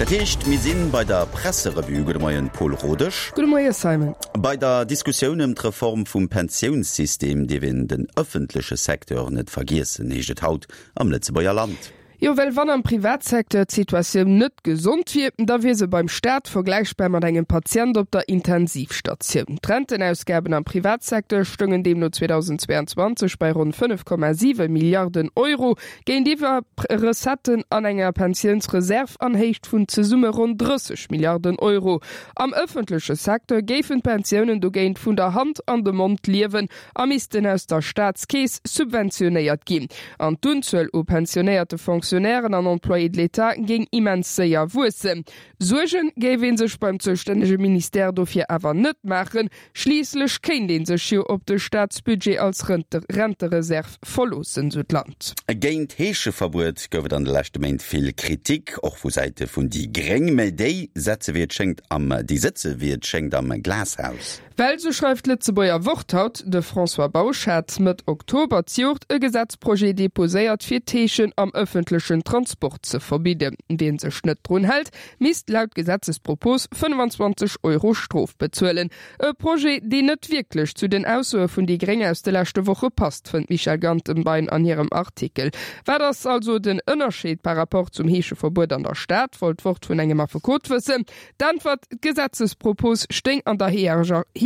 Dat heescht, mir si bei der Presserevue. Gudde Moien, Paul Rodesch. Gudde Moie Simon. Bei der Diskussioun ëm d'Reform vum Pensiounssystem dierf een den ëffentleche Secteur net vergiessen, heescht et haut am Lëtzebuerger Land. Jo, well wann am Privatsecteur d'Situatioun net gesond wier, da wier se beim Staat vergläichbar mat engem Patient op der Intensivstatioun. D'Rentenausgaben am Privatsecteur stoungen deemno 2022 bei ronn 5,7 Milliarden Euro, géintiwwer Recetten an enger Pensiounsreserv an Héicht vun zesumme ronn 30 Milliarden Euro. Am ëffentleche Secteur géifen d'Pensiounen dogéint vun der Hand an de Mond liewen a missten aus der Staatskeess subventionéiert ginn. An d'Unzuel u pensionéierte Fonctionnairen an Employés de l'État géing immens séier wuessen. Suerge géif ee sech beim zoustännege Ministère dofir awer net maachen, schliisslech kéint ee sech jo op de Staatsbudget als Rentereserv verloossen, sou d'Land. Géint d'Heescheverbuet gouf et an de leschte Méint vill Kritik, och vu Säite vun déi Gréng. Mä déi setze wéi et schéngt am déi sëtze wéi et schéngt am Glashaus. Well, sou schreift d'Lëtzebuerger Wort haut, de François Bausch hat Mëtt Oktober d'Joert e Gesetzprojet deposéiert, fir d'Heeschen am ëffentlechen Transport ze verbidden. Wien sech net drun hält, misst laut Gesetzespropos 25 Euro Strof bezuelen. E Projet, deen net wierklech zu den Aussoe vun déi Gréng aus de leschte Woche passt, fënnt d'Michèle Gantenbein an hirem Artikel. Wat ass also den Ënnerscheed par rapport zum Heescheverbuet an der Stad, wollt d'Wort vun engem Affekot wëssen. D'Äntwert, D'Gesetzespropos stéing an der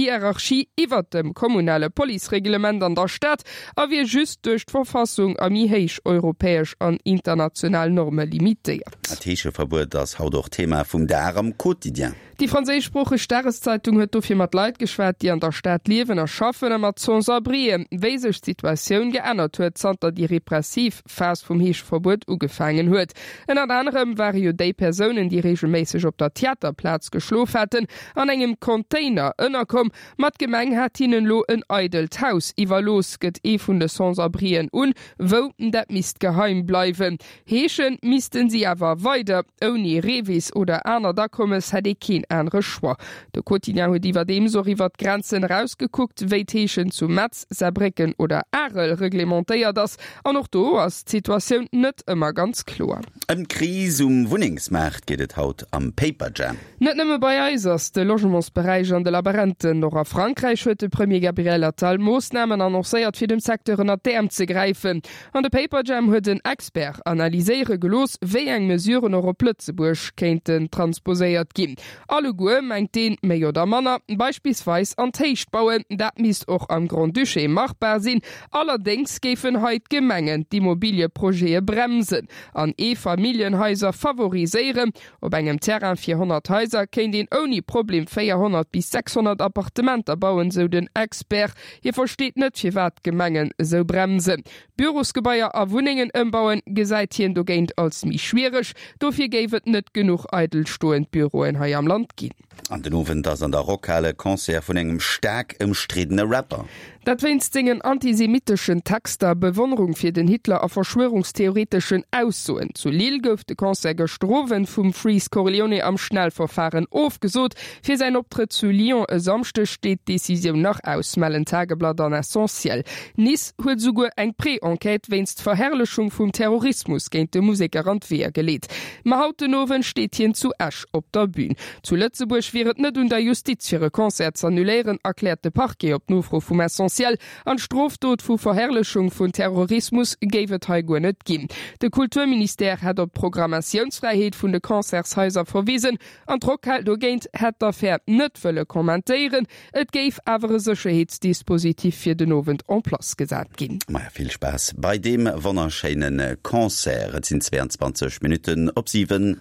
Hierarchie iwwert dem kommunale Policereglement an der Stad a wier just duerch d'Verfassung a méi héich europäesch an international Norme limitéiert. D'Heescheverbuet ass haut och Thema vum Dag am Quotidien. Déi franséischsproocheg Dageszeitung huet dofir mat Leit geschwat, déi an der Stad liewen a schaffen a mat Sans-abrien, wéi sech d'Situatioun geännert huet, zanter déi repressiv Phas vum Heescheverbuet ugefaangen huet. Ënnert anerem ware jo déi Persounen, déi reegelméisseg op der Theaterplaz geschlof haten, an engem Container ënnerkomm. Ma d'Gemeng hat hinnen elo en eidelt Haus iwwerlooss, gëtt ee vun de Sans-abrien un. Wou, dat misst geheim bleiwen. Heesche missten si awer weider. Ouni Revis oder anert Akommes hätt ee keen anere Choix. De Quotidien huet iwwerdeems och iwwer d'Grenzen erausgekuckt, wéi d'Heeschen zu Metz, Saarbrécken oder Arel reglementéiert ass. An och do ass d'Situatioun net ëmmer ganz kloer. Ëm d'Kris um Wunnengsmaart geet et haut am Paperjam. Net nëmme bei eis ass de Logementsberäich an de Laberenten. Och a Frankräich huet de Premier Gabriel Attal Moossnamen annoncéiert, fir dem Secteur ënnert d'Äerm ze gräifen. An de Paperjam huet en Expert analyséiere gelooss, wéi eng Mesuren och op Lëtzebuerg kéinten transposéiert ginn. Alleguer, mengt deen, méi oder manner. Beispillsweis an d'Héicht bauen, dat misst och am Grand-Duché machbar sinn. Allerdéngs géifen hei d'Gemengen d'Immobilieprojete bremsen an Eefamilljenhaiser favoriséieren. Op engem Terrain fir 100 Haiser kéint een ouni Problem 400 bis 600 Appartementer bauen, sou den Expert. Hie versteet net, firwat d'Gemengen esou bremsen. Bürosgebaier a Wunnengen ëmbauen, gesäit hien dogéint als méi schwiereg. Dofir géif et net genuch eidelstoend Büroen hei am Land ginn. An den Owend ass an der Rockhal e Concert vun engem staark ëmstriddene Rapper. Dat wéinst sengen antisemitteschen Texter, Bewonnerung fir den Hitler a verschwörungstheoreteschen Aussoen. Zu Lille gouf de Concert gëschter Owend vum Freeze Corleone am Schnellverfaren ofgesot. Fir säin Optrëtt zu Lyon e Samschdeg steet d'Decisioun nach aus, mellen Tageblatt an Essentiel. Nice huet esouguer eng Pré-Enquête wéinst Verherrlechung vum Terrorismus géint de Museker an d'Weeër geleet. Ma haut den Owend steet hien zu Esch op der Bün. Zu Lëtzebuerg wier et net un der Justiz fir e Concert z'annuléieren, erkläert de Parquet op Nofro vum Essentiel. An d'Strofdot vu Verherrlechung vun Terrorismus géif et hei guer net ginn. De Kulturministère hätt op d'Programmatiounsfräiheet vun de Concertshaiser verwisen an d'Rockhal dogéint hätt d'Affär net wëlle kommentéieren. Et géif awer e Sécherheetsdispositif fir den Owend en place gesat ginn. Maja, vill Spaass bei deem wonnerschéine Concert. Et sinn 22 Minutten op 7.